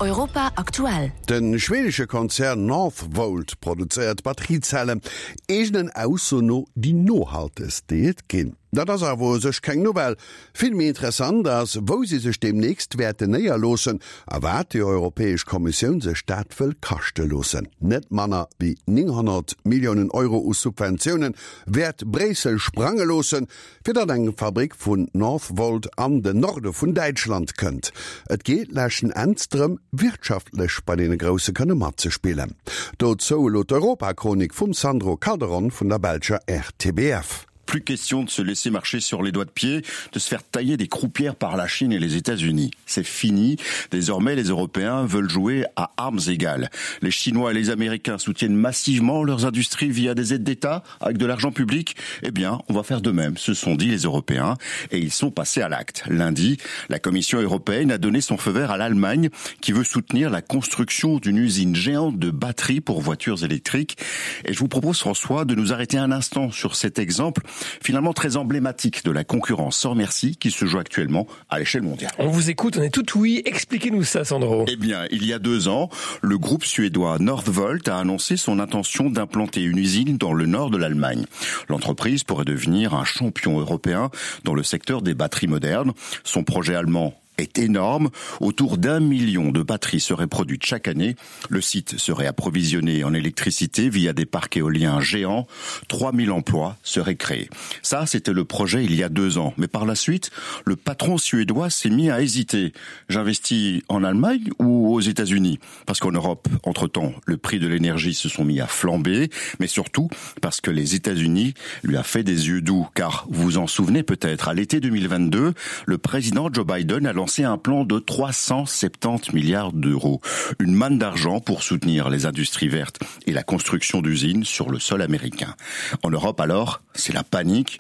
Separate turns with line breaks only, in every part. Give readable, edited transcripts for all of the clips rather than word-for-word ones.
Europa aktuell.
De schwedesche Konzern Northvolt produzéiert Batteriezellen, eegenen Ausso no déi nohaltegst, déi et ginn. Dat ass awer u sech keng Nouvelle. Vill méi interessant ass, wou si sech deemnächst wäerten néierloossen a wat déi Europäesch Kommissioun sech dat wëll kaschte loossen. Net manner wéi 900 Milliounen Euro u Subventioune wäert Bréissel sprange loossen, fir datt eng Fabrick vun Northvolt an den Norde vun Däitschland kënnt. Et geet leschten Enns drëm, wirtschaftlech bei deene Grousse kënne matzespillen. Dozou elo d'Europachronik vum Sandro Calderon vun der belscher RTBF.
Plus question de se laisser marcher sur les doigts de pied, de se faire tailler des croupières par la Chine et les États-Unis. C'est fini. Désormais, les Européens veulent jouer à armes égales. Les Chinois et les Américains soutiennent massivement leurs industries via des aides d'État avec de l'argent public. Eh bien, on va faire de même, se sont dit les Européens et ils sont passés à l'acte. Lundi, la Commission européenne a donné son feu vert à l'Allemagne qui veut soutenir la construction d'une usine géante de batteries pour voitures électriques. Et je vous propose, François, de nous arrêter un instant sur cet exemple finalement très emblématique de la concurrence sans merci qui se joue actuellement à l'échelle mondiale.
On vous écoute, on est tout oui. Expliquez-nous ça, Sandro.
Eh bien, il y a deux ans, le groupe suédois Northvolt a annoncé son intention d'implanter une usine dans le nord de l'Allemagne. L'entreprise pourrait devenir un champion européen dans le secteur des batteries modernes. Son projet allemand est énorme. Autour d'un million de batteries seraient produites chaque année. Le site serait approvisionné en électricité via des parcs éoliens géants. 3000 emplois seraient créés. Ça, c'était le projet il y a deux ans. Mais par la suite, le patron suédois s'est mis à hésiter. J'investis en Allemagne ou aux États-Unis Parce qu'en Europe, entre-temps, le prix de l'énergie se sont mis à flamber, mais surtout parce que les États-Unis lui a fait des yeux doux. Car vous en souvenez peut-être, à l'été 2022, le président Joe Biden a lancé un plan de 370 milliards d'euros. Une manne d'argent pour soutenir les industries vertes et la construction d'usines sur le sol américain. En Europe alors, c'est la panique.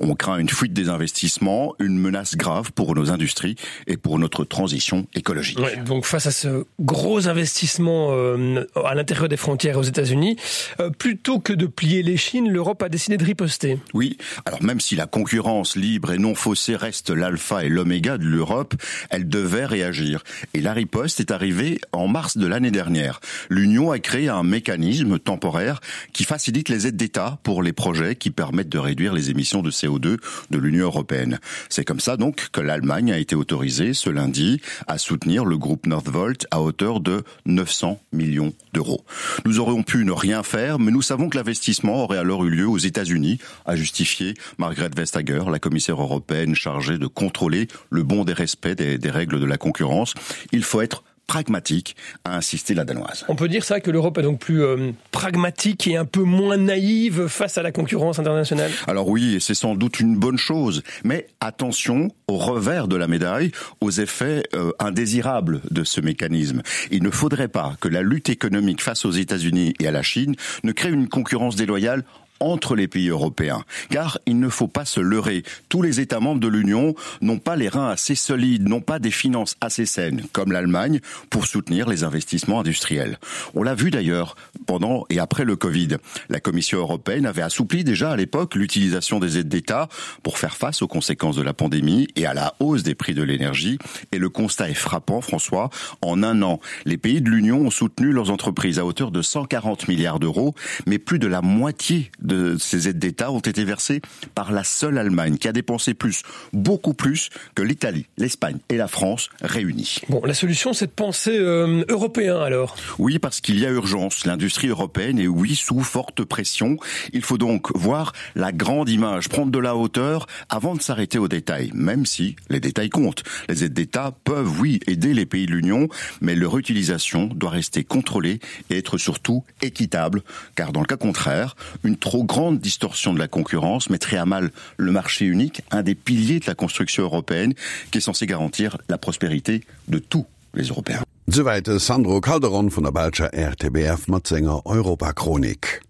On craint une fuite des investissements, une menace grave pour nos industries et pour notre transition écologique.
Ouais, donc face à ce gros investissement euh, à l'intérieur des frontières aux États-Unis, euh, plutôt que de plier les chines, l'Europe a décidé de riposter.
Oui, alors même si la concurrence libre et non faussée reste l'alpha et l'oméga de l'Europe, elle devait réagir. Et la riposte est arrivée en mars de l'année dernière. L'Union a créé un mécanisme temporaire qui facilite les aides d'État pour les projets qui permettent de réduire les émissions de CO2 de l'Union européenne. C'est comme ça donc que l'Allemagne a été autorisée ce lundi à soutenir le groupe Northvolt à hauteur de 900 millions d'euros. Nous aurions pu ne rien faire, mais nous savons que l'investissement aurait alors eu lieu aux États-Unis, a justifié Margaret Vestager, la commissaire européenne chargée de contrôler le bon des respects des, des règles de la concurrence. Il faut être pragmatique, a insisté la Danoise.
On peut dire ça que l'Europe est donc plus euh, pragmatique et un peu moins naïve face à la concurrence internationale
Alors oui, et c'est sans doute une bonne chose, mais attention au revers de la médaille, aux effets euh, indésirables de ce mécanisme. Il ne faudrait pas que la lutte économique face aux États-Unis et à la Chine ne crée une concurrence déloyale entre les pays européens. Car il ne faut pas se leurrer. Tous les États membres de l'Union n'ont pas les reins assez solides, n'ont pas des finances assez saines, comme l'Allemagne, pour soutenir les investissements industriels. On l'a vu d'ailleurs pendant et après le Covid. La Commission européenne avait assoupli déjà à l'époque l'utilisation des aides d'État pour faire face aux conséquences de la pandémie et à la hausse des prix de l'énergie. Et le constat est frappant, François. En un an, les pays de l'Union ont soutenu leurs entreprises à hauteur de 140 milliards d'euros, mais plus de la moitié de ces aides d'État ont été versées par la seule Allemagne qui a dépensé plus, beaucoup plus que l'Italie, l'Espagne et la France réunies.
Bon, la solution c'est de penser euh, européen alors.
Oui, parce qu'il y a urgence. L'industrie européenne est oui sous forte pression. Il faut donc voir la grande image, prendre de la hauteur avant de s'arrêter aux détails, même si les détails comptent. Les aides d'État peuvent oui aider les pays de l'Union, mais leur utilisation doit rester contrôlée et être surtout équitable, car dans le cas contraire, une trop grande distorsion de la concurrence mettrait à mal le marché unique, un des piliers de la construction européenne qui est censé garantir la prospérité de tous les Européens.
Souwäit de Sandro Calderon vun der belscher RTBF mat senger Europachronik.